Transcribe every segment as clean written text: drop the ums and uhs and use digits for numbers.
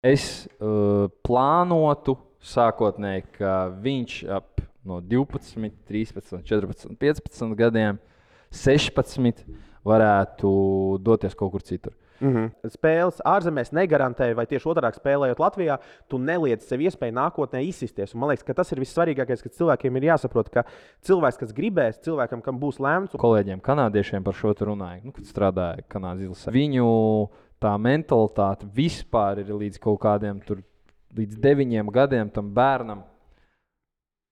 Es plānotu sākotnēji, ka viņš ap no 12, 13, 14, 15 gadiem, 16 varētu doties kaut kur citur. Spēles ārzemēs negarantē, vai tieši otrādi spēlējot Latvijā, tu neliec sev iespēju nākotnē izsisties. Un man liekas, ka tas ir vissvarīgākais, ka cilvēkiem ir jāsaprot, ka cilvēks, kas gribēs, cilvēkam, kam būs lēmts. Kolēģiem, kanādiešiem par šo runāju, kad strādāja Kanādas izlasē. Viņu tā mentalitāte vispār ir līdz kaut kādiem līdz 9 gadiem tam bērnam.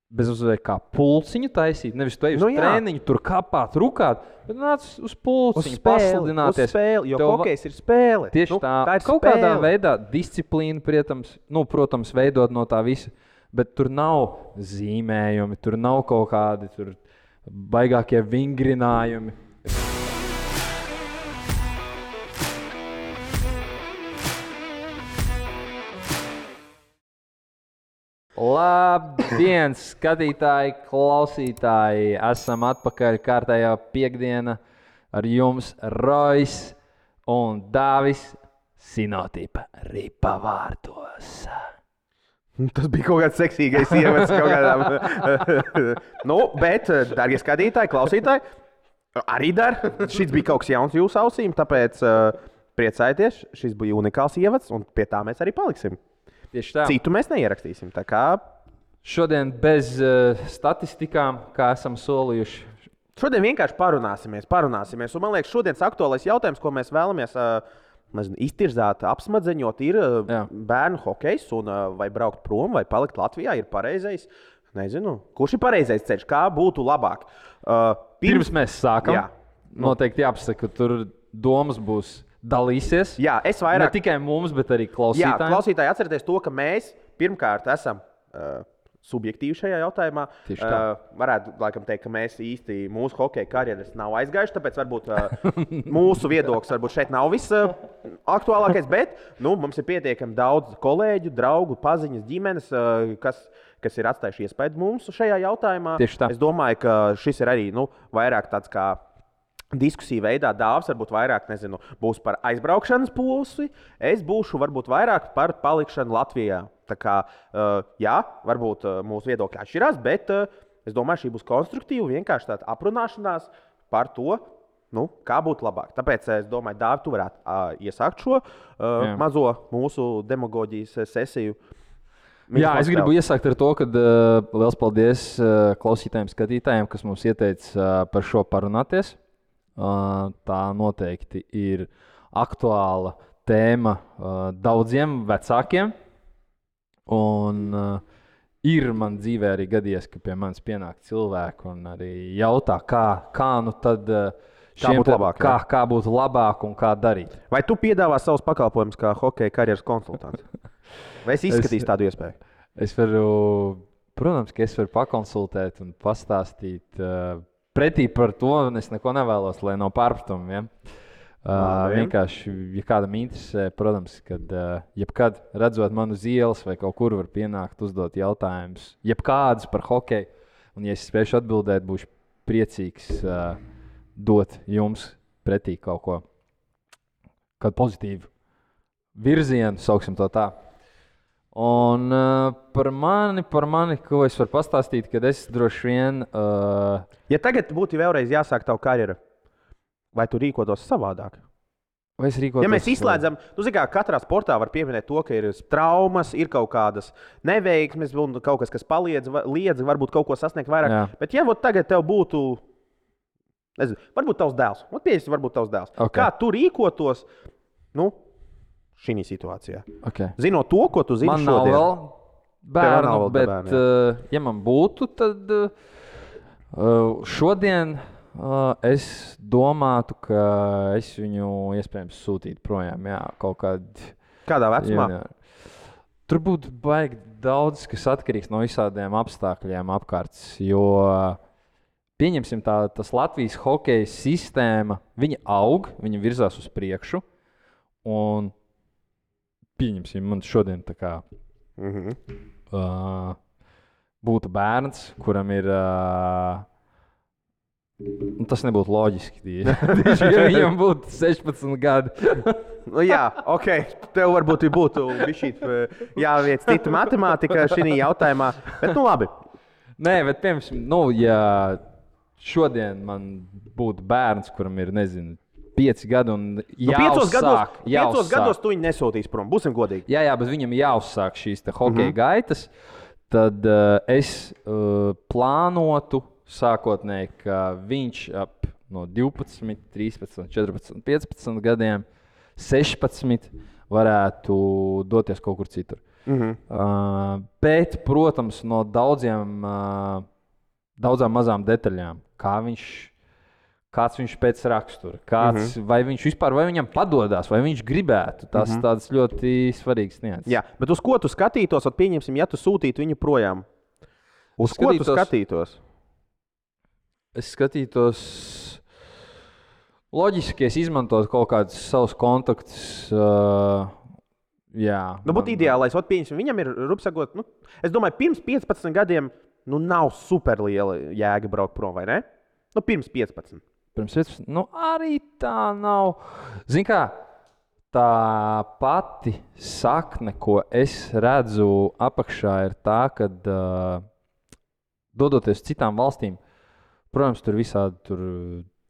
Bez uzveikt kā pulciņu taisīt. Nevis tu ej uz treniņu, tur kāpāt, rukāt, bet nāc uz pulciņu, pasludināties. Uz spēli, jo hokejs ir spēle. Tieši tā ir kaut spēle. Kādā veidā disciplīna, protams, veidot no tā visa, bet tur nav zīmējumi, tur nav kaut kādi baigākie vingrinājumi. Labdien, skatītāji, klausītāji! Esam atpakaļ kārtējā piekdiena ar jums Rojs un Dāvis Sinotipa ripa vārtos. Tas bija kaut kāds seksīgais ievads kaut kādām. Bet, dārgie skatītāji, klausītāji, arī šis bija kaut kas jauns jūsu ausīm, tāpēc priecājieties, šis bija unikāls ievads un pie tā mēs arī paliksim. Citu mēs neierakstīsim. Šodien bez statistikām, kā esam solījuši. Šodien vienkārši parunāsimies. Un man liekas, šodienas aktuālais jautājums, ko mēs vēlamies iztirzāt, apsmadzeņot, ir bērnu hokejs. Vai braukt prom, vai palikt Latvijā, ir pareizais. Nezinu, kurš ir pareizais ceļš, kā būtu labāk. Pirms mēs sākam, noteikti jāpasaka, ka tur domas būs. Dalīsies. Jā, es vairāk. Ne tikai mums, bet arī klausītājiem. Jā, klausītāji atcerieties to, ka mēs pirmkārt esam subjektīvi šajā jautājumā. Varētu laikam teikt, ka mēs īsti mūsu hokeja karjeras nav aizgājuši, tāpēc varbūt mūsu viedoklis varbūt šeit nav visaktuālākais, bet mums ir pietiekami daudz kolēģu, draugu, paziņas, ģimenes, kas ir atstājuši iespaidu mums šajā jautājumā. Es domāju, ka šis ir arī vairāk tāds kā diskusiju veidā. Dāvs varbūt vairāk būs par aizbraukšanas pusi. Es būšu varbūt vairāk par palikšanu Latvijā. Tā kā, varbūt mūsu viedokļi atšķirās, bet es domāju, šī būs konstruktīva, vienkārši tāda aprunāšanās par to, kā būtu labāk. Tāpēc es domāju, Dāvi, tu varētu iesākt šo mazo mūsu demagoģijas sesiju. Jā, es gribu iesākt ar to, ka liels paldies klausītājiem, skatītājiem, kas mums ieteica par šo parunāties. Tā noteikti ir aktuāla tēma daudziem vecākiem. Un ir man dzīvē arī gadījies, ka pie manis pienāk cilvēki un arī jautā, kā būtu labāk un kā darīt. Vai tu piedāvā savus pakalpojumus kā hokeja karjeras konsultants? Vai es izskatīšu tādu iespēju? Protams, ka es varu pakonsultēt un pastāstīt. Pretī par to es neko nevēlos, lai nav pārpratumiem. Vienkārši, ja kādam interesē, protams, kad jebkad redzot manu uz ielas vai kaut kur var pienākt, uzdot jautājumus, jebkādus par hokeju. Un, ja es spēšu atbildēt, būšu priecīgs dot jums pretī kaut ko, kādu pozitīvu virzienu, sauksim to tā. Un par mani, ko es varu pastāstīt, kad es droši vien... Ja tagad būtu vēlreiz jāsāk tavu karjeru, vai tu rīkotos savādāk? Vai es rīkotos? Ja mēs izslēdzam, katrā sportā var pieminēt to, ka ir traumas, ir kaut kādas neveiksmes, un kaut kas liedz, varbūt kaut ko sasniegt vairāk. Jā. Bet ja tagad tev būtu, nezinu, varbūt tavs dēls, varbūt tavs dēls. Okay. Kā tu rīkotos, šī situācijā? Okay. Zinot to, ko tu zini man šodien. Man nav vēl bērnu, bet ja man būtu, tad šodien es domātu, ka es viņu iespējams sūtītu projām. Jā, kādā vecumā? Tur būtu baigi daudz, kas atkarīgs no visādiem apstākļiem apkārt. Jo pieņemsim tas Latvijas hokeja sistēma, viņa aug, viņa virzās uz priekšu. Un pieņemsim, man šodien tā kā būtu bērns, kuram ir Tas nebūtu loģiski. Ja viņam būtu 16 gadi. Jā, ok. Tev varbūt būtu jāviec cita matemātika šī jautājumā. Bet, labi. Nē, bet, piemēram, ja šodien man būtu bērns, kuram ir, 5 gadi un jāuzsāk. 5 gados tu viņu nesūtīs prom, būsim godīgi. Jā, bet viņam jāuzsāk šīs hokeja gaitas, tad es plānotu sākotnēji, ka viņš ap no 12, 13, 14, 15 gadiem, 16 varētu doties kaut kur citur. Bet, protams, no daudzām mazām detaļām, kāds viņš pēc rakstura, vai viņš vispār, vai viņam padodas, vai viņš gribētu. Tas tāds ļoti svarīgs nianses. Jā, bet uz ko tu skatītos, pieņemsim, ja tu sūtītu viņu projām? Uz ko tu skatītos? Es skatītos, loģiski, es izmantotu kaut kādus savus kontaktus. Būtu ideālais, pieņemsim, viņam ir, rupsagot, es domāju, pirms 15 gadiem nav superliela jēga braukt prom, vai ne? Pirms 15. Pirms 15, arī tā nav. Zini kā, tā pati sakne, ko es redzu apakšā, ir tā, ka dodoties citām valstīm, protams, tur visādi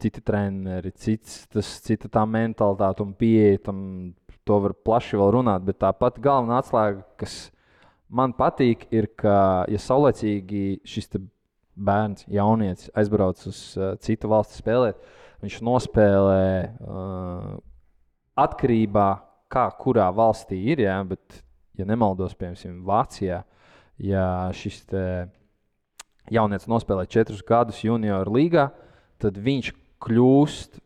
citi treneri, cita tā mentalitāte un pieeja tam, to var plaši vēl runāt, bet tā pati galvenā atslēga, kas man patīk, ir, ka, ja saulēcīgi šis bērns, jaunietis aizbrauc uz citu valsti spēlēt, viņš nospēlē atkarībā, kurā valstī ir, bet, ja nemaldos, piemēram, Vācijā, ja šis jaunietis nospēlē 4 gadus junioru līgā, tad viņš kļūst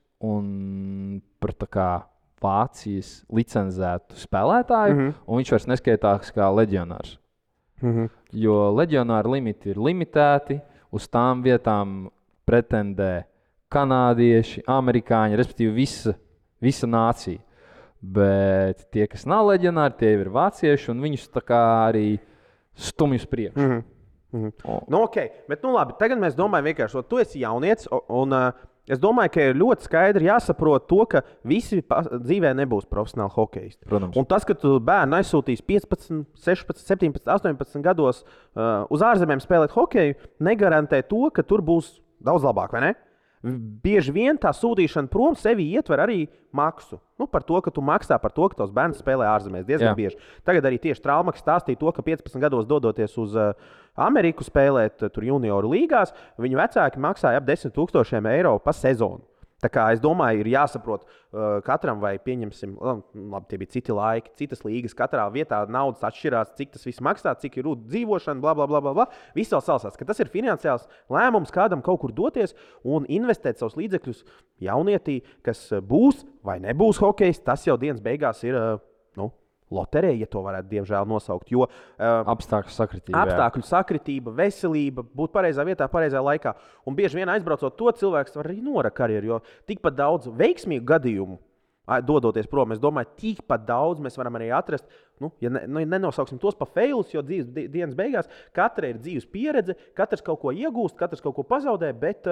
par tā kā Vācijas licencētu spēlētāju, un viņš vairs neskaitās kā leģionārs. Jo leģionāru limiti ir limitēti, uz tām vietām pretendē kanādieši, amerikāņi, respektīvi visa nācija. Bet tie, kas nav leģionāri, tie ir vācieši, un viņus tā kā arī stumj uz priekšu. Ok, bet labi, tagad mēs domājam vienkārši, tu esi jaunietis, un es domāju, ka ir ļoti skaidri jāsaprot to, ka visi dzīvē nebūs profesionāli hokeisti. Protams. Un tas, ka tu bērnu aizsūtīs 15, 16, 17, 18 gados uz ārzemēm spēlēt hokeju, negarantē to, ka tur būs daudz labāk, vai ne? Bieži vien tā sūtīšana prom sevi ietver arī maksu. Par to, ka tu maksā par to, ka tavs bērns spēlē ārzemēs diezgan bieži. Tagad arī tieši Traumaks stāstīja to, ka 15 gados dodoties uz Ameriku spēlēt tur junioru līgās, viņu vecāki maksāja ap 10 000 eiro pa sezonu. Tā kā es domāju, ir jāsaprot katram, vai pieņemsim, labi, tie bija citi laiki, citas līgas, katrā vietā naudas atšķirās, cik tas viss maksā, cik ir dzīvošana, bla, bla, bla, bla. Viss vēl salsās, ka tas ir finansiāls lēmums kādam kaut kur doties un investēt savus līdzekļus jaunietī, kas būs vai nebūs hokejs, tas jau dienas beigās ir, loterija, ja to varētu diemžēl nosaukt, jo apstākļu sakritība, veselība, būt pareizā vietā, pareizā laikā. Un bieži vien aizbraucot to, cilvēks var arī norakt karjeru, jo tikpat daudz veiksmīgu gadījumu dodoties prom, es domāju, tikpat daudz mēs varam arī atrast, ja nenosauksim tos pa failus, jo dzīves dienas beigās katra ir dzīves pieredze, katrs kaut ko iegūst, katrs kaut ko pazaudē, bet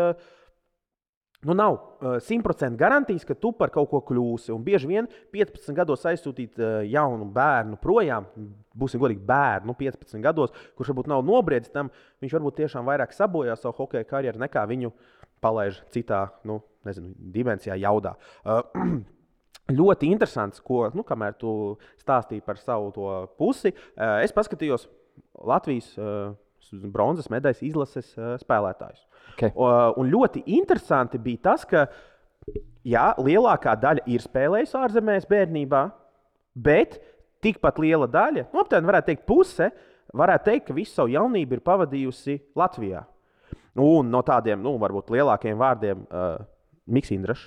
nav 100% garantijas, ka tu par kaut ko kļūsi. Un bieži vien 15 gados aizsūtīt jaunu bērnu projām, būsim godīgi bērnu 15 gados, kurš varbūt nav nobriedzis tam, viņš varbūt tiešām vairāk sabojā savu hokeja karjeru, nekā viņu palaiž citā, dimensijā, jaudā. Ļoti interesants, ko, kamēr tu stāstīji par savu to pusi, es paskatījos Latvijas bronzas medaļas izlases spēlētājus. Okay. Un ļoti interesanti bija tas, ka lielākā daļa ir spēlējusi ārzemēs bērnībā, bet tikpat liela daļa, aptuveni varētu teikt puse, varētu teikt, ka visu savu jaunību ir pavadījusi Latvijā. Un no tādiem, varbūt lielākiem vārdiem, Miks Indrašs.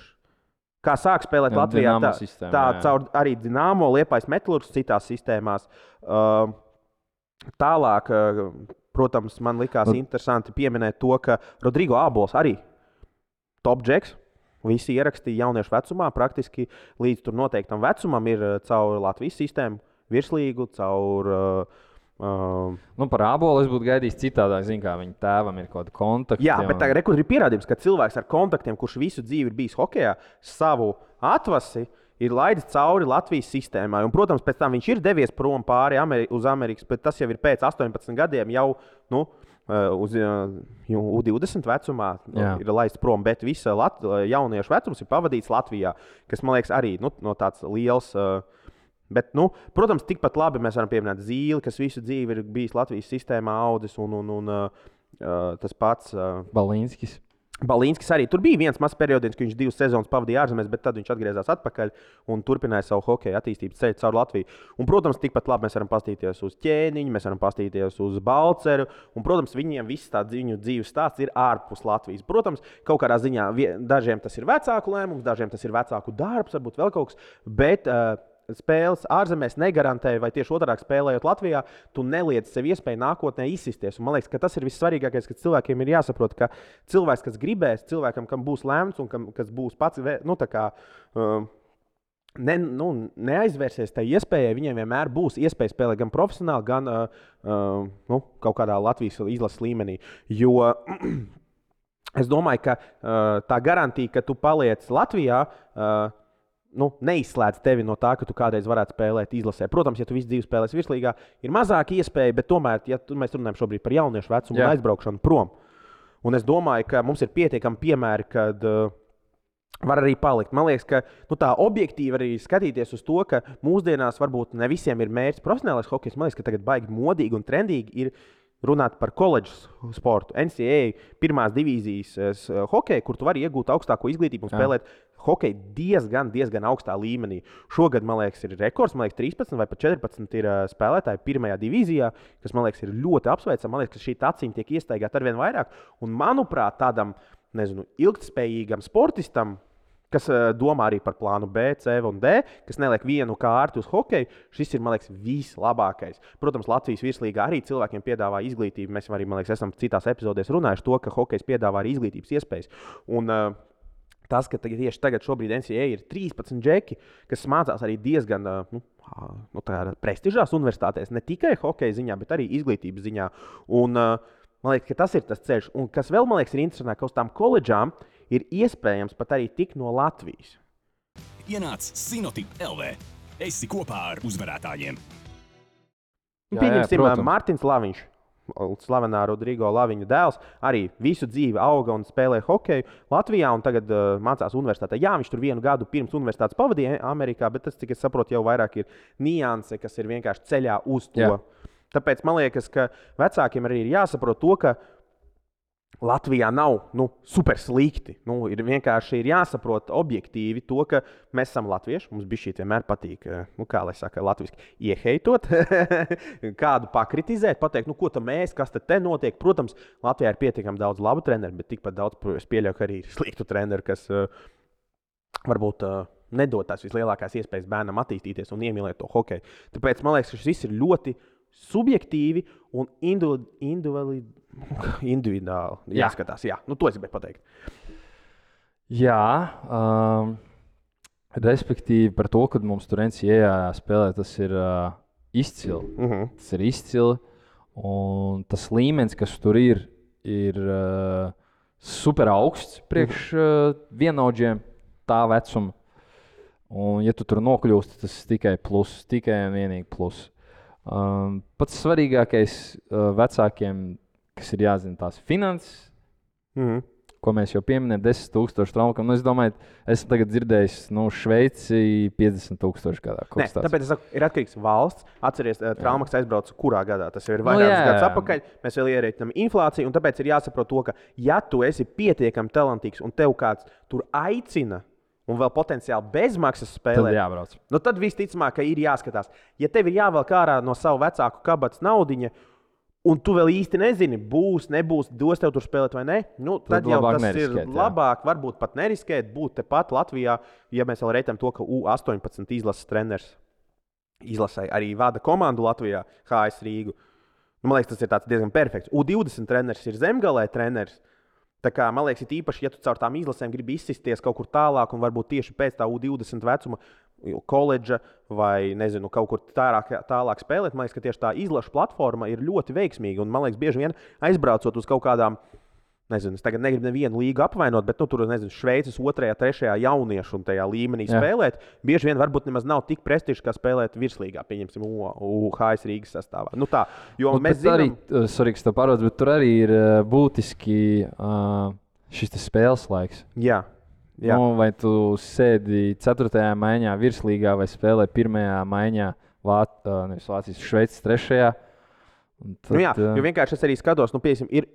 Kā sāk spēlēt Latvijā, tā caur arī Dinamo, Liepājas Metalurgs, citās sistēmās. Tālāk, protams, man likās interesanti pieminēt to, ka Rodrigo Ābols arī top džeks. Visi ierakstīja jauniešu vecumā, praktiski līdz tur noteiktam vecumam ir caur Latvijas sistēmu virslīgu, caur Par Ābolu es būtu gaidījis citādāk. Zinu, kā viņa tēvam ir kaut kāda kontakta. Jā, bet tagad ir pierādījums, ka cilvēks ar kontaktiem, kurš visu dzīvi ir bijis hokejā, savu atvasi ir laidis cauri Latvijas sistēmai. Un, protams, pēc tam viņš ir devies prom pāri uz Amerikas, bet tas jau ir pēc 18 gadiem jau uz U20 vecumā ir laists prom. Bet visa jauniešu vecums ir pavadīts Latvijā, kas, man liekas, arī no tāds liels. Bet, protams, tikpat labi mēs varam pieminēt Zīli, kas visu dzīvi ir bijis Latvijas sistēmā audis, un tas pats Balīnskis arī. Tur bija viens mazs periods, kad viņš 2 sezonas pavadīja ārzemēs, bet tad viņš atgriezās atpakaļ un turpināja savu hokeja attīstības ceļu caur Latviju. Un, protams, tikpat labi mēs varam paskatīties uz Ķēniņu, mēs varam paskatīties uz Balceru. Un, protams, viņiem viss tāds viņu dzīves stāsts ir ārpus Latvijas. Protams, kaut kādā ziņā dažiem tas ir vecāku lēmums, dažiem tas ir vecāku darbs, varbūt vēl kaut kas. Bet spēles ārzemēs negarantē, vai tieši otrādi spēlējot Latvijā, tu neliedz sev iespēju nākotnē izsisties. Un man liekas, ka tas ir vissvarīgākais, ka cilvēkiem ir jāsaprot, ka cilvēks, kas gribēs, cilvēkam, kam būs lemts un kas būs pats, neaizvērsies tai iespējai, viņiem vienmēr būs iespēja spēlēt gan profesionāli, gan kaut kādā Latvijas izlases līmenī. Jo es domāju, ka tā garantija, ka tu paliec Latvijā, neizslēdz tevi no tā, ka tu kādreiz varētu spēlēt izlasē. Protams, ja tu visu dzīvi spēlēsi virslīgā, ir mazāk iespēja, bet tomēr, ja mēs runājam šobrīd par jauniešu vecumu un aizbraukšanu prom. Un es domāju, ka mums ir pietiekami piemēri, kad var arī palikt. Man liekas, ka tā objektīvi arī skatīties uz to, ka mūsdienās varbūt ne visiem ir mērķis profesionālais hokejs. Man liekas, ka tagad baigi modīgi un trendīgi ir runāt par koledžas sportu, NCAA pirmās divīzijas hokeju, kur tu vari iegūt augstāko izglītību un spēlēt hokeju diezgan augstā līmenī. Šogad, man liekas, ir rekords, man liekas, 13 vai pat 14 ir spēlētāji pirmajā divīzijā, kas, man liekas, ir ļoti apsveicami. Man liekas, ka šī taciņa tiek iestaigāta arvien vairāk. Un, manuprāt, tādam, ilgtspējīgam sportistam, kas domā arī par plānu B, C un D, kas neliek vienu kārtu uz hokeju, šis ir, man liekas, vislabākais. Protams, Latvijas virslīgā arī cilvēkiem piedāvā izglītību. Mēs arī, man liekas, esam citās epizodēs runājuši to, ka hokejs piedāvā arī izglītības iespējas. Un tas, ka tieši tagad šobrīd NCAA ir 13 džeki, kas mācās arī diezgan prestižās universitātēs, ne tikai hokeja ziņā, bet arī izglītības ziņā. Un man liekas, ka tas ir tas ceļš. Un kas vēl, man liekas, ir interesanti, ka uz tām koledžām ir iespējams pat arī tikt no Latvijas. Ienāc Sinotip LV. Esi kopā ar uzvarētājiem. Pieņemsim, Mārtiņš Laviņš, slavenā Rodrigo Laviņa dēls, arī visu dzīvi auga un spēlēja hokeju Latvijā un tagad mācās universitātē. Jā, viņš tur 1 gadu pirms universitātes pavadīja Amerikā, bet tas, cik es saprotu, jau vairāk ir nianse, kas ir vienkārši ceļā uz to. Jā. Tāpēc man liekas, ka vecākiem arī ir jāsaprot to, ka Latvijā nav super slikti. Ir vienkārši jāsaprot objektīvi to, ka mēs esam latvieši. Mums bišķi vienmēr patīk, kā lai saka, latviski ieheitot, kādu pakritizēt, pateikt, ko tam mēs, kas te notiek. Protams, Latvijā ir pietiekami daudz labu treneru, bet tikpat daudz, es pieļauju, ka arī ir sliktu treneru, kas varbūt nedod tās vislielākās iespējas bērnam attīstīties un iemīlēt to hokeju. Tāpēc man liekas, ka šis viss ir ļoti subjektīvi un individuāli jāskatās. Jā, to es gribēju pateikt. Jā, respektīvi par to, ka mums tur NCAA spēlē, tas ir izcili. Tas ir izcili. Un tas līmenis, kas tur ir super augsts priekš vienaudžiem tā vecuma. Un, ja tu tur nokļūsti, tas ir tikai plus, tikai un vienīgi plus. Pats svarīgākais vecākiem, kas ir jāzina tās finanses, ko mēs jau pieminējām, 10,000 traumām. Es domāju, esmu tagad dzirdējis, Šveici 50,000 gadā. Nē, tāpēc es saku, ir atkarīgs valsts. Atceries, traumas aizbrauc kurā gadā. Tas jau ir vairākus gadus atpakaļ. Mēs vēl ierēķinām inflāciju, un tāpēc ir jāsaprot to, ka ja tu esi pietiekami talantīgs un tev kāds tur aicina, un vēl potenciāli bezmaksas spēlē, tad visticamāk, ka ir jāskatās. Ja tev ir jāvelk ārā no savu vecāku kabatas naudiņa, un tu vēl īsti nezini, būs, nebūs, dos tev tur spēlēt vai nē, tad jau tas ir labāk, varbūt pat neriskēt, būt tepat Latvijā, ja mēs vēl reitam to, ka U18 izlases treneris izlasē arī vada komandu Latvijā, HS Rīgu. Man liekas, tas ir diezgan perfekts. U20 treneris ir Zemgalē treneris. Tā kā, man liekas, ir īpaši, ja tu caur tām izlasēm gribi izsisties kaut kur tālāk un varbūt tieši pēc tā U20 vecuma koledža vai, nezinu, kaut kur tālāk spēlēt. Man liekas, ka tieši tā izlaša platforma ir ļoti veiksmīga. Un, man liekas, bieži vien aizbraucot uz kaut kādām, nezinu, es tagad negribu nevienu līgu apvainot, bet tur, nezinu, Šveices 2., 3. jauniešu un tajā līmenī spēlēt. Bieži vien varbūt nemaz nav tik prestižs, kā spēlēt virslīgā, pieņemsim, UHS Rīgas sastāvā. Nu tā, jo mēs zinām... Bet tur arī ir būtiski šis spēles laiks. Jā. Nu, vai tu sēdi 4. maiņā virslīgā vai spēlē 1. maiņā Vācijas Šveices 3. Tad, jā, jo vienkārši es arī skatos, piemēram, ir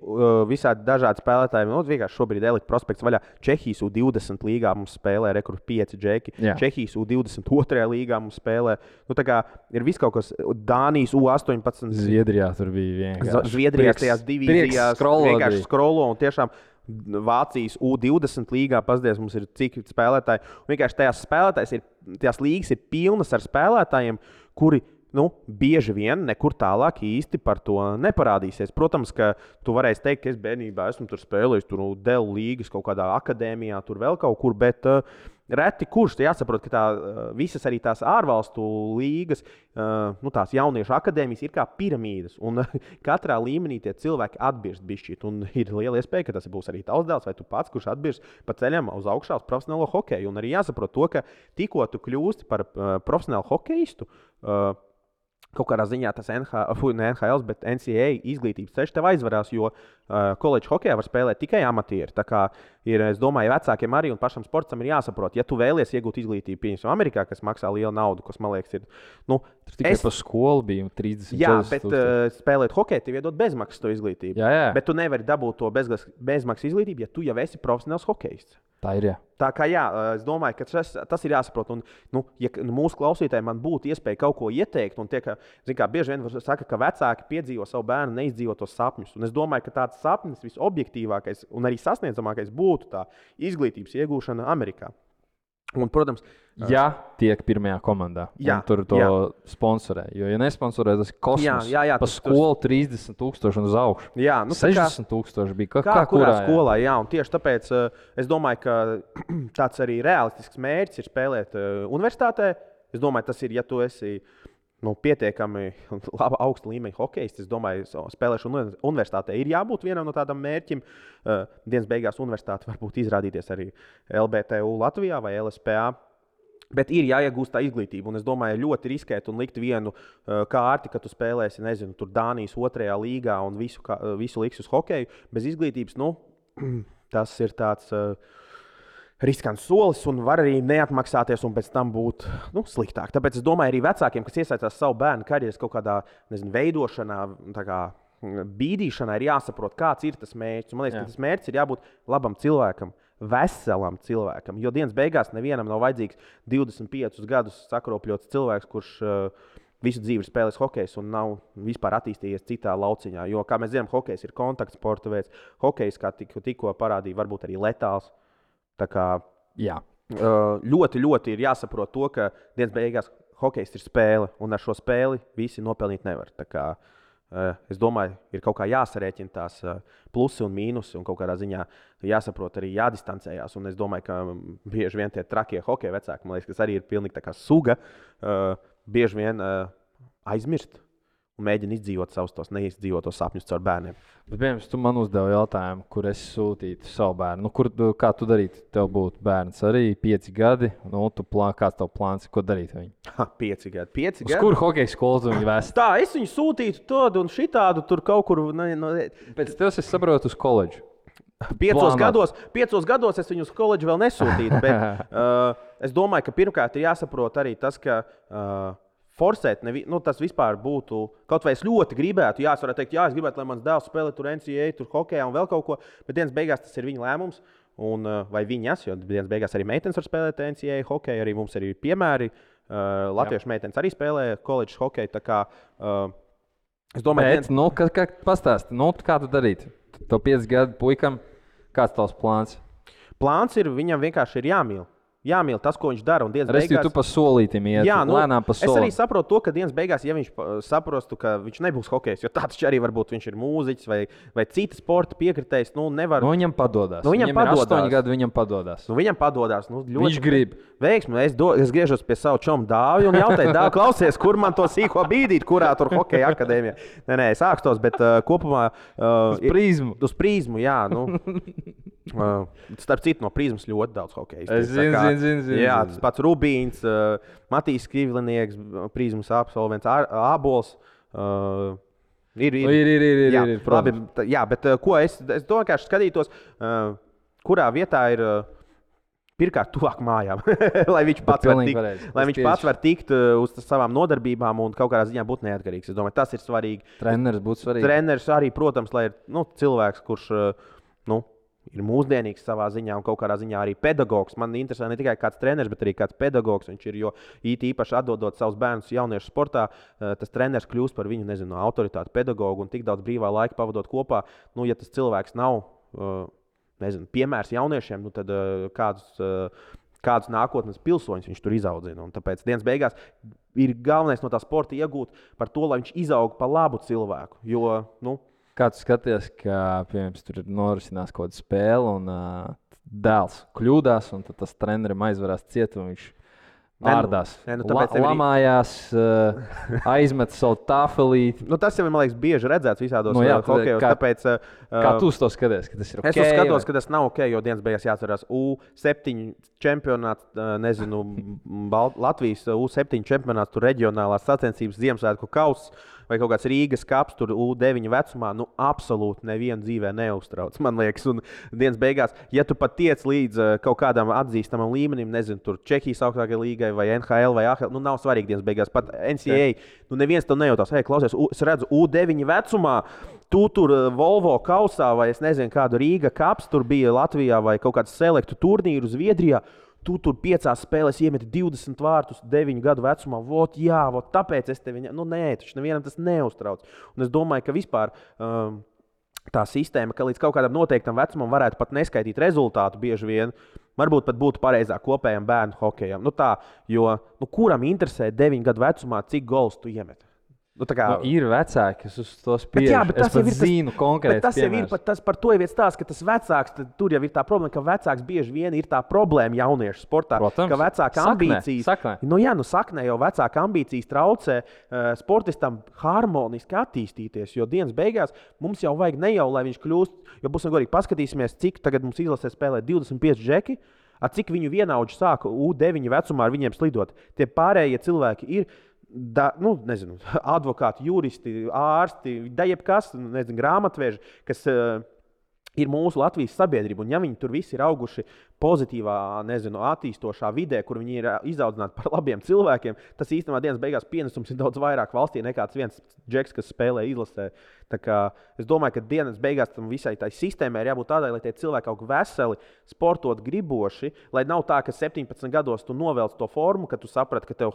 visādi dažādi spēlētāji. Vienkārši šobrīd Elite prospekts vaļā. Čehijas U20 līgā mums spēlē rekords 5 džeki. Jā. Čehijas U22 līgā mums spēlē. Ir viss kaut kas Dānijas U18. Zviedrijā tur bija vienkārši. Zviedrijās tajās divīzijās vienkārši skrolo un tiešām Vācijas U20 līgā pasties mums ir cik spēlētāji. Un vienkārši tajās līgas ir pilnas ar spēlētājiem, kuri bieži vien nekur tālāk īsti par to neparādīsies. Protams, ka tu varēsi teikt, ka es bērnībā esmu tur spēlējis Dēlu līgas kaut kādā akadēmijā, tur vēl kaut kur, bet reti kurš jāsaprot, ka visas arī tās ārvalstu līgas, tās jauniešu akadēmijas ir kā piramīdas, un katrā līmenī tie cilvēki atbirst bišķīt, un ir liela iespēja, ka tas būs arī tavs dēls vai tu pats, kurš atbirst pa ceļam uz augšā uz profesionālo hokeju, un arī jāsaprot to, ka tikko tu kļūsti par profesionālu hokeistu, kaut kādā ziņā tas NHL, bet NCAA izglītības ceļš tev aizvarās, jo koledžu hokejā var spēlēt tikai amatieri. Tā kā ir, es domāju, vecākiem arī un pašam sportam ir jāsaprot, ja tu vēlies iegūt izglītību, piemēram, Amerikā, kas maksā lielu naudu, kas, man liekas, ir... Tikai par skolu bija 30. Jā, bet spēlēt hokeju, tev iedod bezmaksas to izglītību. Jā. Bet tu nevari dabūt to bezmaksas izglītību, ja tu jau esi profesionāls hokejists. Tā ir, jā. Tā kā jā, es domāju, ka tas ir jāsaprot. Un, ja mūsu klausītājiem man būtu iespēja kaut ko ieteikt, un bieži vien saka, ka vecāki piedzīvo savu bērnu neizdzīvotos sapņus. Un es domāju, ka tāds sapnis visobjektīvākais un arī sasniedzamākais būtu tā izglītības iegūšana Amerikā. Un, protams, ja tiek pirmajā komandā, tur to sponsorē. Jo, ja nesponsorē, tas ir kosmos. Pa skolu 30,000 un uz augšu. 60,000 bija. Kā kurā skolā, jā. Un tieši tāpēc es domāju, ka tāds arī realistisks mērķis ir spēlēt universitātē. Es domāju, tas ir, ja tu esi pietiekami laba augsta līmeņa hokejists. Es domāju, spēlēšana universitātē ir jābūt vienam no tādam mērķim. Dienas beigās universitāte varbūt izrādīties arī LBTU Latvijā vai LSPA. Bet ir jāiegūst tā izglītība. Un es domāju, ļoti riskēt un likt vienu kārti, ka tu spēlēsi, nezinu, tur Dānijas 2. līgā un visu liks uz hokeju. Bez izglītības, tas ir tāds... riskants solis un var arī neatmaksāties un pēc tam būt sliktāk. Tāpēc es domāju, arī vecākiem, kas iesaistās savu bērnu karjeras kaut kādā veidošanā, bīdīšanā, ir jāsaprot, kāds ir tas mērķis. Man liekas, ka tas mērķis ir jābūt labam cilvēkam, veselam cilvēkam. Jo dienas beigās nevienam nav vajadzīgs 25 gadus sakropļots cilvēks, kurš visu dzīvi spēlēs hokejs un nav vispār attīstījies citā lauciņā. Jo, kā mēs zinām, hokejs ir kontaktsporta veids. Hokejs, kā tikko parādīja, varbūt arī letāls. Tā kā ļoti, ļoti ir jāsaprot to, ka dienas beigās hokejs ir spēle, un ar šo spēli visi nopelnīt nevar. Tā kā, es domāju, ir kaut kā jāsarēķina tās plusi un mīnusi, un kaut kādā ziņā jāsaprot arī jādistancējās. Un es domāju, ka bieži vien tie trakie hokeja vecāki, man liekas, kas arī ir pilnīgi tā kā suga, bieži vien aizmirst. Mēģina izdzīvot savus tos neizdzīvotos sapņus caur bērniem. Bet, piemēram, tu man uzdevi jautājumu, kur es sūtītu savu bērnu. Kā tu darītu? Tev būtu bērns arī 5 gadi. Kāds tev plāns, ko darīt ar viņu? 5 gadi. Uz kuru hokeja skolu tu viņu vēsti? Tā, es viņu sūtītu tādu un šitādu tur kaut kur. Pēc tev es saprotu uz koledžu. 5 gados es viņu uz koledžu vēl nesūtītu. Bet es domāju, ka pirmkārt ir jāsaprot arī tas, ka... forsēt, tas vispār būtu, kaut vai es ļoti gribētu, es varētu teikt, es gribētu, lai mans dēls spēlē tur NCAA, tur hokejā un vēl kaut ko, bet dienas beigās tas ir viņa lēmums, vai viņas, jo dienas beigās arī meitenes var spēlēt NCAA hokeju, arī mums ir piemēri, latviešu meitenes arī spēlē koledžas hokeju, tā kā, es domāju... Bet, pastāsti, kā tu darītu? Tev 5 gadu puikam, kāds tavs plāns? Plāns ir, viņam vienkārši ir jāmīl. jāmīl tas, ko viņš dara. Un dienas beigās... tu pa solītim iet, lēnām pa solim. Es arī saprotu to, ka dienas beigās, ja viņš saprostu, ka viņš nebūs hokejs, jo tāds arī varbūt viņš ir mūziķis vai cita sporta piekritējs, nevar... Viņam padodas. Viņam ir 8 gadi, viņam padodas. Viņam padodas. Ļoti viņš grib. Veiksmi. Es griežos pie savu čomu Dāvi un jautāju, Dāvi, klausies, kur man to sīko bīdīt, kurā tur hokeja akadēmijā. Nē, es ākstos, bet kopumā... Uz prizmu, jā. Starp citu, no prizmas ļoti daudz hokeja. Es zinu. Jā, tas pats Rubīns, Matīs Krivlinieks, prizmas absolvents, Ābols. Ir. Labi, jā, bet ko es vienkārši skatītos, kurā vietā ir pirmkārt tuvāk mājām, lai viņš pats var tikt uz savām nodarbībām un kaut kādā ziņā būt neatkarīgs. Es domāju, tas ir svarīgi. Treneris būtu svarīgi. Treneris arī, protams, lai ir cilvēks, kurš ir mūsdienīgs savā ziņā un kaut kādā ziņā arī pedagogs. Man interesē ne tikai kāds treneris, bet arī kāds pedagogs. Viņš ir, jo īpaši atdodot savus bērnus jauniešu sportā, tas treneris kļūst par viņu, autoritāti pedagogu un tik daudz brīvā laika pavadot kopā. Ja tas cilvēks nav, piemērs jauniešiem, tad kādus nākotnes pilsoņus viņš tur izaudzina. Un tāpēc dienas beigās ir galvenais no tā sporta iegūt par to, lai viņš izaug par labu cilvēku. Jo, Kā tu skaties, ka tur norisinās kaut kāda spēle un dēls kļūdās, un tad tas trenerim aizvarās ciet, un viņš ārdās, lamājās, aizmet savu tāfelīti. Tas jau ir, man liekas, bieži redzēts visādos hokejos. Tāpēc, kā tu uz to skaties, ka tas ir ok? Es skatos, ka tas nav ok, jo dienas beigās jāatcerās U7 čempionāts, Latvijas U7 čempionāts, tur reģionālās sacensības, Ziemassvētku kauss vai kaut kāds Rīgas kaps, tur U9 vecumā, absolūti nevienu dzīvē neuztrauc, man liekas. Un dienas beigās, ja tu pat tiec līdz kaut kādam atzīstamam līmenim, tur Čehijas augstākajai līgai vai NHL vai AHL, nav svarīgi dienas beigās. Pat NCAA, neviens to nejautās. Klausies, es redzu U9 vecumā, tu tur Volvo kausā vai es nezinu kādu Rīga kaps tur bija Latvijā vai kaut kāds selektu turnīru Zviedrijā. Tu tur 5 spēlēs iemeti 20 vārtus 9 gadu vecumā. Tāpēc es tevi... Nē, taču nevienam tas neuztrauc. Un es domāju, ka vispār tā sistēma, ka līdz kaut kādam noteiktam vecumam varētu pat neskaitīt rezultātu bieži vien, varbūt pat būtu pareizāk kopējam bērnu hokejam. Jo kuram interesē 9 gadu vecumā, cik gols tu iemeti? Ir vecāki, kas uz to spiež. Es pat zinu konkrēti. Tas jau ir par to jau stāsts, ka tas vecāks, tur jau ir tā problēma, ka vecāks bieži vien ir tā problēma jauniešu sportā. Protams, ka vecāka ambīcijas, saknē jau vecāka ambīcijas traucē sportistam harmoniski attīstīties, jo dienas beigās mums jau vajag ne jau, lai viņš kļūst, jo būsim godīgi paskatīsimies, cik tagad mums izlasē spēlē 25 džeki, cik viņu vienaudži sāka U9 vecumā ar viņiem slidot. Tie pārējie cilvēki ir advokāti, juristi, ārsti, jebkas, grāmatveži, kas ir mūsu Latvijas sabiedrība. Un ja viņi tur visi ir auguši pozitīvā, attīstošā vidē, kur viņi ir izaudzināti par labiem cilvēkiem, tas īstenībā dienas beigās pienesums ir daudz vairāk valstī nekā viens džeks, kas spēlē izlasē. Es domāju, ka dienas beigās tam visai tai sistēmai ir jābūt tādai, lai tie cilvēki aug veseli, sportot griboši, lai nav tā, ka 17 gados tu novelc to formu, ka tu saprati, ka tev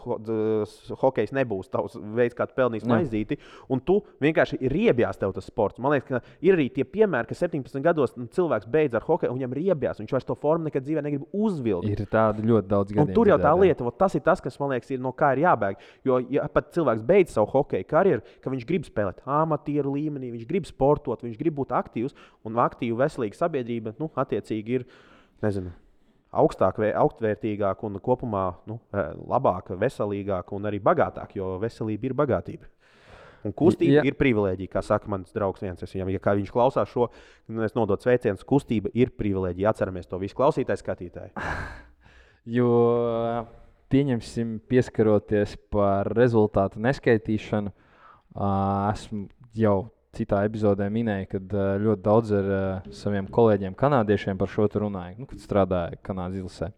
hokejs nebūs tavs veids, kā tu pelnīsi maizīti, un tu vienkārši riebjās tev tas sports. Man liekas, ka ir arī tie piemēri, ka 17 gados cilvēks beidz ar hokeju, un viņam riebjās, viņš vairs to formu nekad dzīvē negrib uzvilkt. Ir tādi ļoti daudz gadiem. Un tur jau tā lieta, tas ir tas, kas man liekas, ir no kā ir jābēg. Jo ja pat cilvēks beidz savu hokeju karjeru, ka viņš grib spēlēt amatieru līmenī, viņš grib sportot, viņš grib būt aktīvs, un aktīva, veselīga sabiedrība, attiecīgi ir, augstvērtīgāka un kopumā labāka, veselīgāka un arī bagātāka, jo veselība ir bagātība. Un kustība ir privilēģija, kā saka mans draugs viens. Ja viņš klausās šo, es nododu sveicienus, kustība ir privilēģija. Atceramies to visu klausītāji, skatītāji. Jo, pieņemsim, pieskaroties par rezultātu neskaitīšanu, esmu jau citā epizodē minēju, kad ļoti daudz ar saviem kolēģiem kanādiešiem par šo runāju, kad strādāju Kanādas izlasē.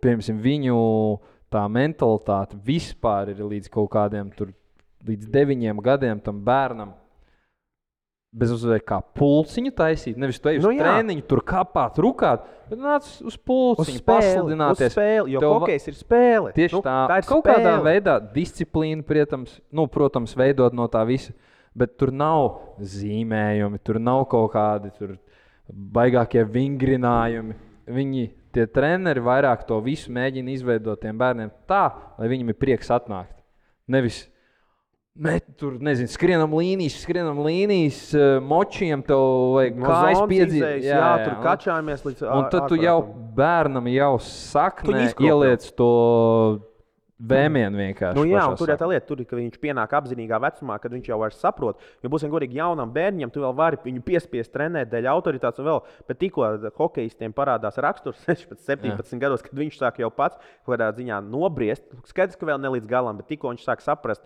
Piemēram, viņu tā mentalitāte vispār ir līdz kaut kādiem līdz 9 gadiem tam bērnam bez uzvēja kā pulciņu taisīt. Nevis tu ej uz trēniņu, tur kāpāt, rukāt, bet nāc uz pulciņu, pasludināties. Uz spēli, jo hokejs ir spēle. Tieši tā ir kaut spēle. Kādā veidā disciplīna, protams, veidot no tā visa, bet tur nav zīmējumi, tur nav kaut kādi tur baigākie vingrinājumi. Viņi tie treneri vairāk to visu mēģina izveidot tiem bērniem tā, lai viņam ir prieks atnākt. Nevis tur, nezinu, skrienam līnijas, močiem tev vajag kājas piedzīt. Jā, tur kačājamies līdz... Un tad tu jau bērnam jau saknē ieliec to vēmienu vienkārši. Nu jā, un tur tā lieta, ka viņš pienāk apzinīgā vecumā, kad viņš jau vairs saprot. Jo būsim godīgi jaunam bērņam, tu vēl vari viņu piespiest trenēt dēļ autoritātes un vēl, bet tikko hokejistiem parādās raksturs 16-17 gados, kad viņš sāk jau pats kādā ziņā nobriest. Skaidrs, ka vēl ne līdz galam, bet tikko viņš sāk saprast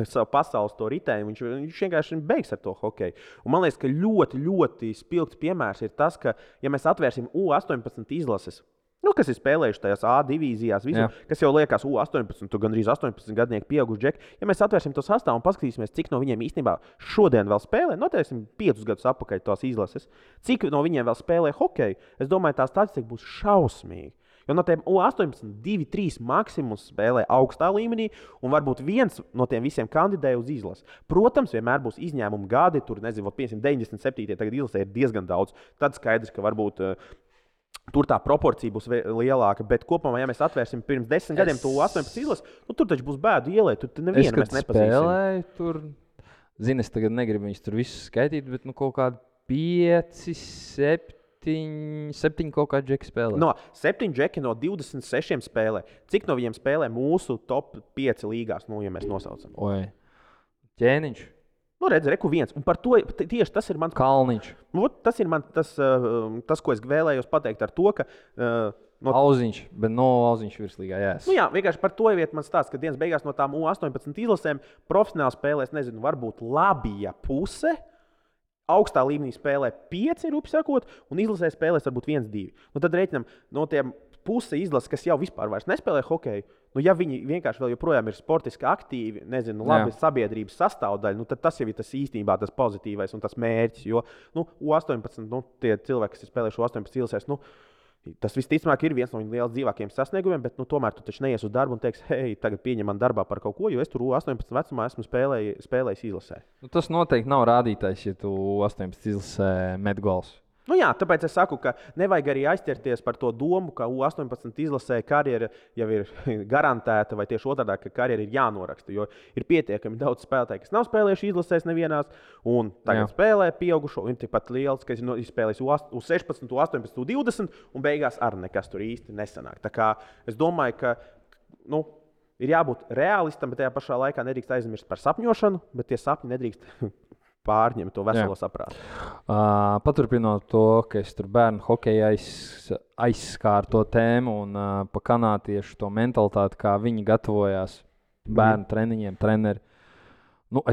savu pasaules to ritēju, viņš vienkārši beigs ar to hokeju. Un man liekas, ka ļoti, ļoti spilgts piemērs ir tas, ka ja mēs atvērsim U18 izlases, kas ir spēlējuši tajās A divīzijās, kas jau liekas, 18, tu gandrīz 18 gadnieki pieauguši džeki. Ja mēs atvērsim to sastāvu un paskatīsimies, cik no viņiem īstenībā šodien vēl spēlē, noteiksim 5 gadus atpakaļ tās izlases, cik no viņiem vēl spēlē hokeju, es domāju, tā statistika būs šausmīga. Jo no tiem U18 2-3 maksimums spēlē augstā līmenī, un varbūt viens no tiem visiem kandidē uz izlasi. Protams, vienmēr būs izņēmumi gadi, tur nezinu, 97. tagad izlasē ir diezgan daudz. Tad skaidrs, ka varbūt tur tā proporcija būs lielāka, bet kopumā, ja mēs atvērsim pirms 10 gadiem to 18 izlasi, tur taču būs bēdu ielēt, tur nevienu mēs nepazīsim. Spēlēju tur, es tagad negribu viņus tur visus skaitīt, bet kaut kādi 5, 7 kaut kādi džeki spēlē. 7 džeki no 26 spēlē. Cik no viņiem spēlē mūsu top 5 līgās, ja mēs nosaucam? Ķēniņš. Redz, reku viens. Un par to tieši tas ir mans... Kalniņš. Tas ir tas, ko es vēlējos pateikt ar to, ka... Auziņš, bet Auziņš virslīgā, jās. Jā, vienkārši par to vietu man stāsta, ka dienas beigās no tām U18 izlasēm profesionāli spēlēs, nezinu, varbūt labija puse, augstā līmenī spēlē 5, sakot, un izlasē spēlēs varbūt 1-2. Tad reiķinam no tiem puse izlases, kas jau vispār vairs nespēlē hokeju, ja viņi vienkārši vēl joprojām ir sportiski aktīvi, nezinu, labi sabiedrības sastāvdaļa, tad tas jau ir tas īstenībā tas pozitīvais un tas mērķis, jo U18, tie cilvēki, kas ir spēlējuši U18 izlasēs, tas visticamāk ir viens no viņu lielākajiem dzīvākajiem sasniegumiem, bet tomēr tu taču neies uz darbu un teiksi, hei, tagad pieņem man darbā par kaut ko, jo es tur U18 vecumā esmu spēlējis izlasē. Tas noteikti nav rādītājs, ja tu U18 izlasē met gols. Jā, tāpēc es saku, ka nevajag arī aizķerties par to domu, ka U18 izlasē karjera jau ir garantēta, vai tieši otrādi, ka karjera ir jānoraksta. Jo ir pietiekami daudz spēlētāju, kas nav spēlējuši izlasēs nevienās, un tagad spēlē pieaugušo, un tikpat liels, kas ir spēlējis U16, U18, U20, un beigās arī nekas tur īsti nesanāk. Tā kā es domāju, ka ir jābūt realistam, bet tajā pašā laikā nedrīkst aizmirst par sapņošanu, bet tie sapņi nedrīkst pārņem to veselo saprātu. Paturpinot to, ka es tur bērnu hokeja aizskāru to tēmu un pa kanātiešu to mentalitāti, kā viņi gatavojās bērnu treniņiem, treneri.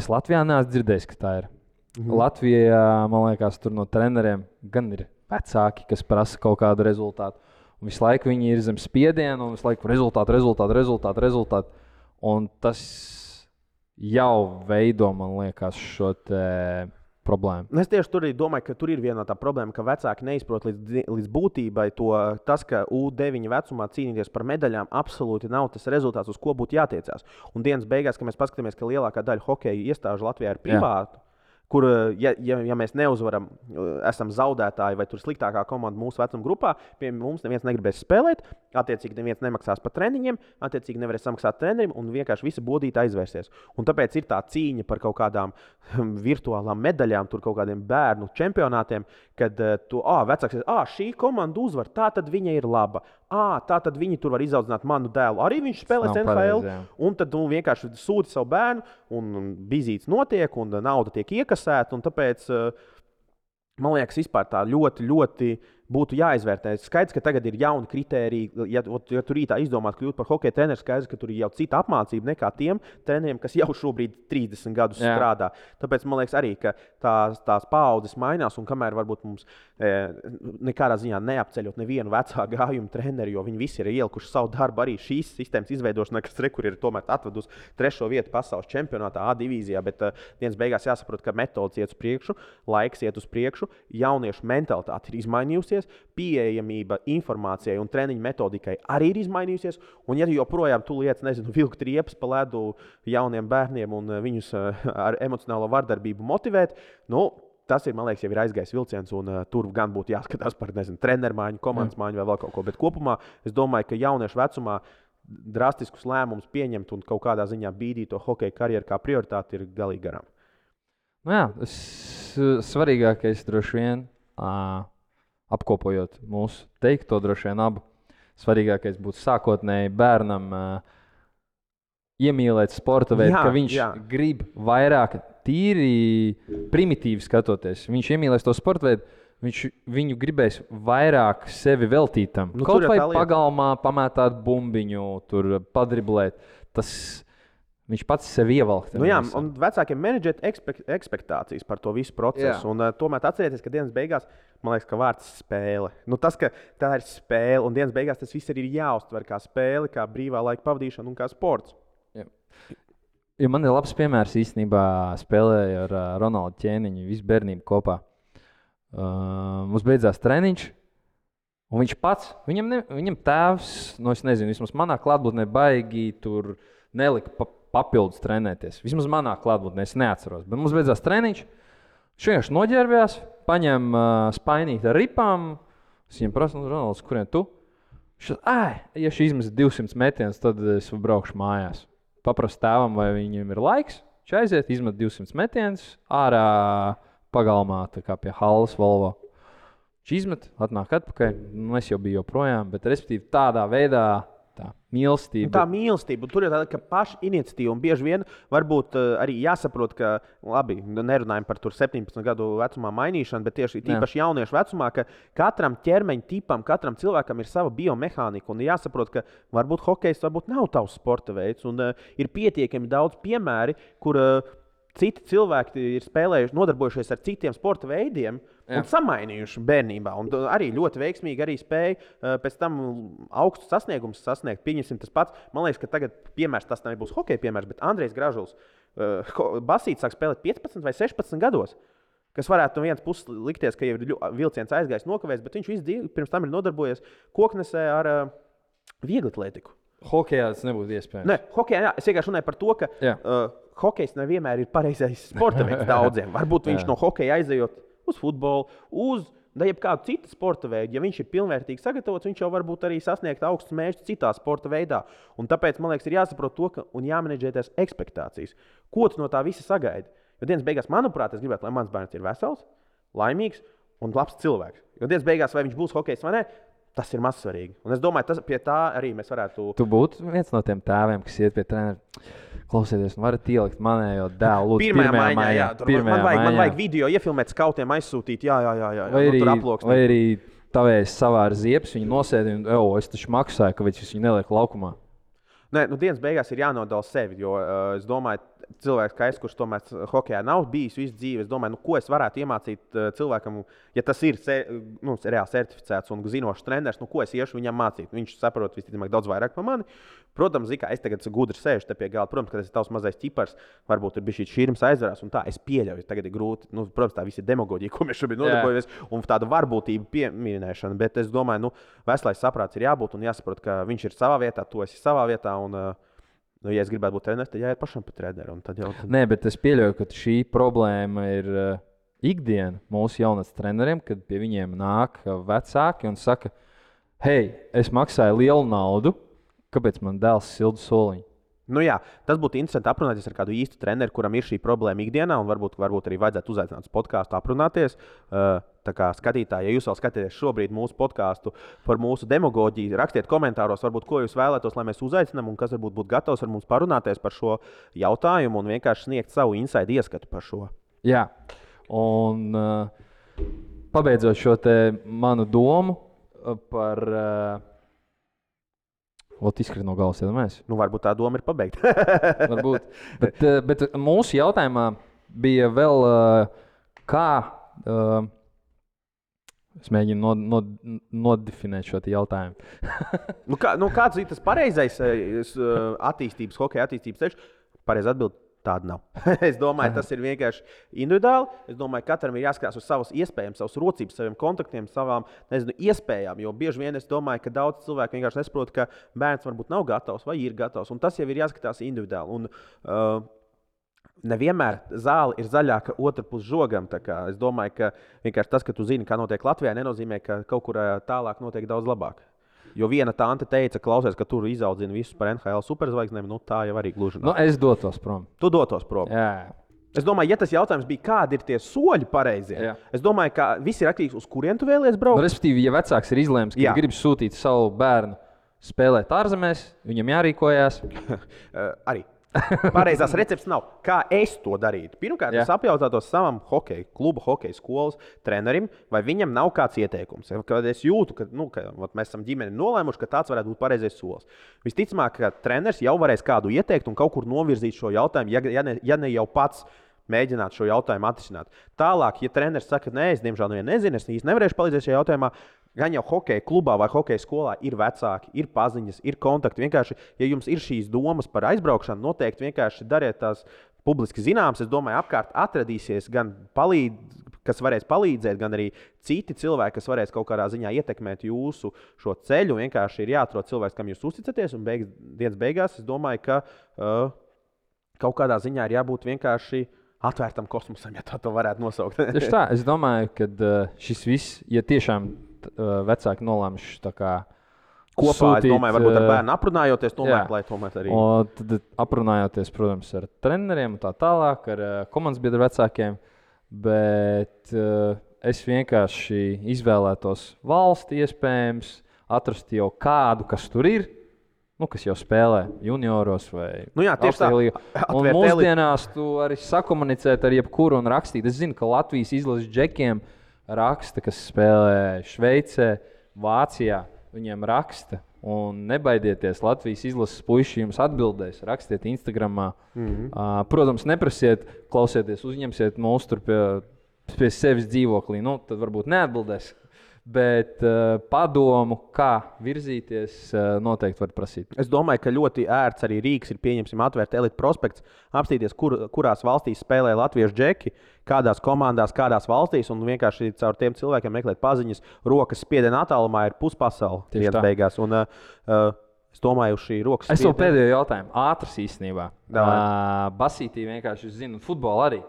Es Latvijā neesmu dzirdējis, ka tā ir. Latvijā, man liekas, tur no treneriem gan ir vecāki, kas prasa kaut kādu rezultātu. Un visu laiku viņi ir zem spiediena un visu laiku rezultātu. Un tas jau veido, man liekas, šo problēmu. Es tieši tur domāju, ka tur ir viena no tā problēma, ka vecāki neizprot līdz būtībai tas, ka U9 vecumā cīnīties par medaļām absolūti nav tas rezultāts, uz ko būtu jātiecās. Un dienas beigās, kad mēs paskatāmies, ka lielākā daļa hokeja iestāžu Latvijā ir privāta, kur, ja mēs neuzvaram, esam zaudētāji vai tur sliktākā komanda mūsu vecuma grupā, pie mums neviens negribēs spēlēt, attiecīgi neviens nemaksās par treniņiem, attiecīgi nevarēs samaksāt trenerim un vienkārši visi bodīti aizvērsies. Un tāpēc ir tā cīņa par kaut kādām virtuālām medaļām, tur kaut kādiem bērnu čempionātiem, kad vecāks ir, šī komanda uzvar, tā tad viņa ir laba. Tā tad viņi tur var izaudzināt manu dēlu. Arī viņš spēlēs NHL, un tad vienkārši sūti savu bērnu, un bizītes notiek, un nauda tiek iekasēta, un tāpēc, man liekas, vispār tā ļoti, ļoti būtu jāizvērtē. Skaidrs, ka tagad ir jauni kritēriji. Ja tur rītā izdomāt kļūt par hokeja treneru, skaidrs, ka tur ir jau cita apmācība nekā tiem treneriem, kas jau šobrīd 30 gadus strādā. Tāpēc man liekas arī, ka tās paaudzes mainās, un kamēr varbūt mums nekādā ziņā neapceļot nevienu vecā gājuma treneri, jo viņi visi ir ielikuši savu darbu arī šīs sistēmas izveidošanā, kas rekur ir tomēr atvedusi 3. vietu pasaules čempionātā A divīzijā, bet dienas beigās jāsaprot, ka metodas iet uz priekšu, laiks iet uz priekšu, jauniešu mentalitāte ir izmainījusies, pieejamība informācijai un treniņu metodikai arī ir izmainījusies, un ja joprojām tu lietas, vilkt riepas pa ledu jauniem bērniem un viņus ar emocionālo vardarbību motivēt, tas ir, man liekas, jau ir aizgājis vilciens, un tur gan būtu jāskatās par, treneru maiņu, komandas maiņu vai vēl kaut ko. Bet kopumā es domāju, ka jauniešu vecumā drastiskus lēmumus pieņemt un kaut kādā ziņā bīdīt to hokeja karjeru kā prioritāti ir galīgi garām. Nu jā, svarīgākais droši vien, apkopojot mūsu teikto, droši vien abu, svarīgākais būtu sākotnēji bērnam iemīlēt sporta veidu, ka viņš grib vairāk tīri primitīvi skatoties. Viņš iemīlēs to sporta veidu, viņu gribēs vairāk sevi veltīt tam. Kaut vai pagalmā pamētāt bumbiņu, tur padriblēt. Viņš pats sevi ievelk. Nu jā, un vecākiem menedžēt ekspektācijas par to visu procesu. Un tomēr atcerieties, ka dienas beigās, man liekas, ka vārds spēle. Nu, tas, ka tā ir spēle, un dienas beigās tas viss arī ir jāuztver kā spēle, kā brīvā laika pavadīšana un kā sports. Ja man ir labs piemērs īstenībā spēlēju ar Ronaldu Ķēniņu, visu bērnību kopā. Mums beidzās treniņš, un viņš pats, viņam tēvs, es nezinu, vismaz manā klātbūtnē baigi tur nelika papildus trenēties. Vismaz manā klātbūtnē, es neatceros. Bet mums beidzās treniņš, viņš vienkārši noģērbjās, paņem spainīt ar ripām, es viņam prasu, Ronalds, kurien tu? Ja šī izmes 200 metienus, tad es braukšu mājās. Paprastu tēvam, vai viņam ir laiks, viņš aiziet, izmet 200 metienus, ārā pagalmā, tā kā pie Halles Volvo. Viņš izmet, atnāk atpakaļ, es jau biju joprojām, bet respektīvi tādā veidā tā mīlestība. Tā mīlestība, un tur ir tāda, ka paša iniciatīva, un bieži vien varbūt arī jāsaprot, ka, labi, nerunājam par tur 17 gadu vecumā mainīšanu, bet tieši tīpaši jauniešu vecumā, ka katram ķermeņa tipam, katram cilvēkam ir sava biomehānika, un jāsaprot, ka varbūt hokejs varbūt nav tavs sporta veids, un ir pietiekami daudz piemēri, kur citi cilvēki ir spēlējuši, nodarbojušies ar citiem sporta veidiem, un samainījuši bērnībā. Un arī ļoti veiksmīgi arī spēja pēc tam augstu sasniegumus sasniegt. Pieņemsim tas pats. Man liekas, ka tagad piemērs, tas nebūs hokeja piemērs, bet Andrejs Gražuls basīts sāk spēlēt 15 vai 16 gados. Kas varētu no vienas puses likties, ka jau ir vilciens aizgājis nokavēs, bet viņš visu dzīvi pirms tam ir nodarbojies koknesē ar vieglatlētiku. Hokejā tas nebūtu iespējams. Ne, hokejā, es vienkārši runāju par to, ka hokejs nevienmēr ir pareizais sporta veids daudziem. Varbūt viņš no hokeja aizejot uz futbolu, uz jebkādu citu sporta veidu. Ja viņš ir pilnvērtīgi sagatavots, viņš jau varbūt arī sasniegt augstus mērķus citā sporta veidā. Un tāpēc, man liekas, ir jāsaprot to, ka un jāmenedžē tās ekspektācijas. Ko tu no tā visa sagaidi? Jo dienas beigās, manuprāt, es gribētu, lai mans bērns ir vesels, laimīgs un labs cilvēks. Jo dienas beigās, vai viņš būs hokejs vai ne, tas ir mazsvarīgi. Un es domāju, pie tā arī mēs varētu... Tu būtu viens no tiem tēviem, kas iet pie trenera. Klausieties, varat ielikt manējo dēlu, lūdzu, pirmajā maiņā. Man vajag video iefilmēt, skautiem aizsūtīt, jā. Vai arī tavējs savāra ziepes, viņu nosēdi un, es taču maksāju, ka viņu neliek laukumā. Nē, dienas beigās ir jānodala sevi, jo es domāju, cilvēks, kā es, kurš tomēr hokejā nav bijis visu dzīvi, es domāju, ko es varētu iemācīt cilvēkam, ja tas ir reāli certificēts un zinošs treneris, ko es iešu viņam mācīt. Viņš saprot visticamāk daudz vairāk par mani. Protams, kā es tagad gudri sēžu te pie galda, protams, ka tas ir tavs mazais ķipars, varbūt ir bijis šī šķirms aizvarās, un tā es pieļauju, tagad ir grūti. Protams, tā visa demagoģija, ko mēs šobrīd nodarbojamies, un tāda varbūtība pieminēšana, bet es domāju, veselais saprāts ir jābūt un jāsaprot, ka viņš ir savā vietā, tu esi savā vietā, un ja es gribētu būt treneris, tad jāiet pašam pa treneru. Nē, bet es pieļauju, ka šī problēma ir ikdiena mūsu jaunatnes treneriem, kad pie viņiem nāk vecāki un saka, hei, es maksāju lielu naudu, kāpēc man dēls sildu soliņu? Tas būtu interesanti aprunāties ar kādu īstu treneru, kuram ir šī problēma ikdienā, un varbūt arī vajadzētu uzaicināt uz podkāstu aprunāties. Tā kā skatītāji, ja jūs vēl skatāties šobrīd mūsu podkāstu par mūsu demagoģiju, rakstiet komentāros, varbūt, ko jūs vēlētos, lai mēs uzaicinām, un kas varbūt būtu gatavs ar mums parunāties par šo jautājumu un vienkārši sniegt savu inside ieskatu par šo. Jā, un pabeidzot šo te manu domu par... Ot izkrīt no galvas, iedomājies. Varbūt tā doma ir pabeigta. Varbūt. Bet mūsu jautājumā bija vēl kā... Es mēģinu nodefinēt šo jautājumu. Kāds ir tas pareizais attīstības, hokeja attīstības ceļš? Pareizi atbild. Tāda nav. Es domāju, tas ir vienkārši individuāli. Es domāju, ka katram ir jāskatās uz savas iespējas, savas rocības, saviem kontaktiem, savām iespējām. Jo bieži vien es domāju, ka daudz cilvēku vienkārši nesaprot, ka bērns varbūt nav gatavs vai ir gatavs. Un tas jau ir jāskatās individuāli. Un, nevienmēr zāle ir zaļāka otrā pus žogam. Es domāju, ka vienkārši tas, ka tu zini, kā notiek Latvijā, nenozīmē, ka kaut kur tālāk notiek daudz labāk. Jo viena tante teica, klausies, ka tur izaudzina visus par NHL superzvaigznēm, tā jau arī gluži nav. Es dotos prom. Tu dotos prom. Jā. Es domāju, ja tas jautājums bija, kādi ir tie soļi pareizie, es domāju, ka viss ir atkarīgs uz kurien tu vēlies braukt. Respektīvi, ja vecāks ir izlēms, ka grib sūtīt savu bērnu spēlēt ārzemēs, viņam jārīkojās. Arī. Pareizās receptes nav. Kā es to darītu? Pirmkārt, es apjautātos savam kluba hokeja skolas trenerim, vai viņam nav kāds ieteikums. Kad es jūtu, ka mēs esam ģimeni nolēmuši, ka tāds varētu būt pareizais solis. Visticamāk, ka treneris jau varēs kādu ieteikt un kaut kur novirzīt šo jautājumu, ja ne jau pats mēģināt šo jautājumu atrisināt. Tālāk, ja treneris saka, nē, es diemžēl nezinu, es īsti nevarēšu palīdzēt šajā jautājumā, gan jau hokeja klubā vai hokeja skolā ir vecāki, ir paziņas, ir kontakti. Vienkārši, ja jums ir šīs domas par aizbraukšanu, noteikti vienkārši dariet tās publiski zināmas. Es domāju, apkārt atradīsies gan kas varēs palīdzēt, gan arī citi cilvēki, kas varēs kaut kādā ziņā ietekmēt jūsu šo ceļu. Vienkārši ir jāatrod cilvēks, kam jūs uzticaties, un dienas beigās es domāju, ka kaut kādā ziņā ir jābūt vienkārši atvērtam kosmosam, ja tā varētu nosaukt. Tieši tā, es domāju, ka šis viss, ja tiešām vecāki nolēmuši tā kā kopā, sūtīt, es domāju, varbūt ar bērnu aprunājoties, lai tomēr arī. Un tad aprunājoties, protams, ar treneriem un tā tālāk, ar komandas biedru vecākiem, bet es vienkārši izvēlētos valsti iespējams, atrast jau kādu, kas tur ir, kas jau spēlē junioros vai augstajā līgā. Un mūsdienās tu arī sakomunicēt ar jebkuru un rakstīt. Es zinu, ka Latvijas izlases džekiem raksta, kas spēlē Šveicē, Vācijā. Viņiem raksta. Un nebaidieties, Latvijas izlases puiši jums atbildēs. Rakstiet Instagramā. Protams, neprasiet, klausieties, uzņemsiet mūs tur pie sevis dzīvoklī. Tad varbūt neatbildēs. Bet padomu, kā virzīties, noteikti var prasīt. Es domāju, ka ļoti ērts arī rīks ir pieņemsim atvērt Elite prospekts, apstīties, kurās valstīs spēlē latviešu džeki, kādās komandās, kādās valstīs, un vienkārši caur tiem cilvēkiem meklēt paziņas. Rokas spiediena attālumā ir puspasaule dienas beigās. Un, es domāju, uz šī rokas spiediena. Es vēl pēdējo jautājumu. Ātrs īstenībā. Basītī vienkārši, es zinu, futbolu arī.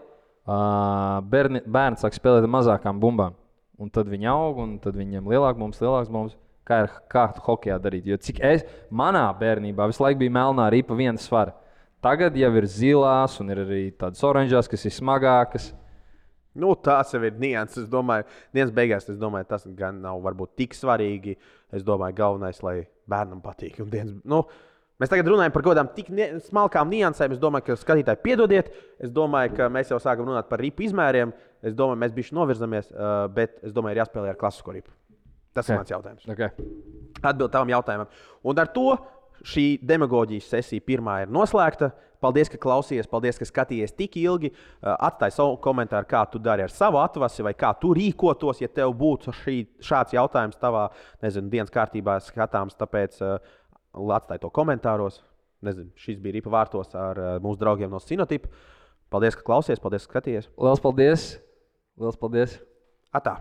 Bērni sāk spēlēt ar mazākām bumbām. Un tad viņi aug, un tad viņiem lielāks mums. Kā hokejā darīt? Jo cik manā bērnībā visu laiku bija melnā ripa viena svara. Tagad jau ir zilās un ir arī tādas oranžās, kas ir smagākas. Tās jau ir nianses. Es domāju, dienas beigās tas gan nav varbūt tik svarīgi. Es domāju, galvenais, lai bērnam patīk. Mēs tagad runājam par kaut kādām tik smalkām niansēm. Es domāju, ka skatītāji piedodiet. Es domāju, ka mēs jau sākam runāt par ripu izmēriem. Es domāju, mēs bišķi novirzamies, bet es domāju, ir jāspēlē ar klasisko ripu. Tas ir mans jautājums. Atbild tavam jautājumam. Un ar to šī demagoģijas sesija pirmā ir noslēgta. Paldies, ka klausījies, paldies, ka skatījies tik ilgi. Atstāj savu komentāru, kā tu dari ar savu atvasi vai kā tu rīkotos, ja tev būtu šāds jautājums tavā, dienas kārtībā skatāms. Tāpēc atstāj to komentāros. Šis bija Ripa vārtos ar mūsu draugiem no Sinotipa. Paldies, ka klausies, paldies, ka skatījies. Liels paldies! Liels paldies! Atā!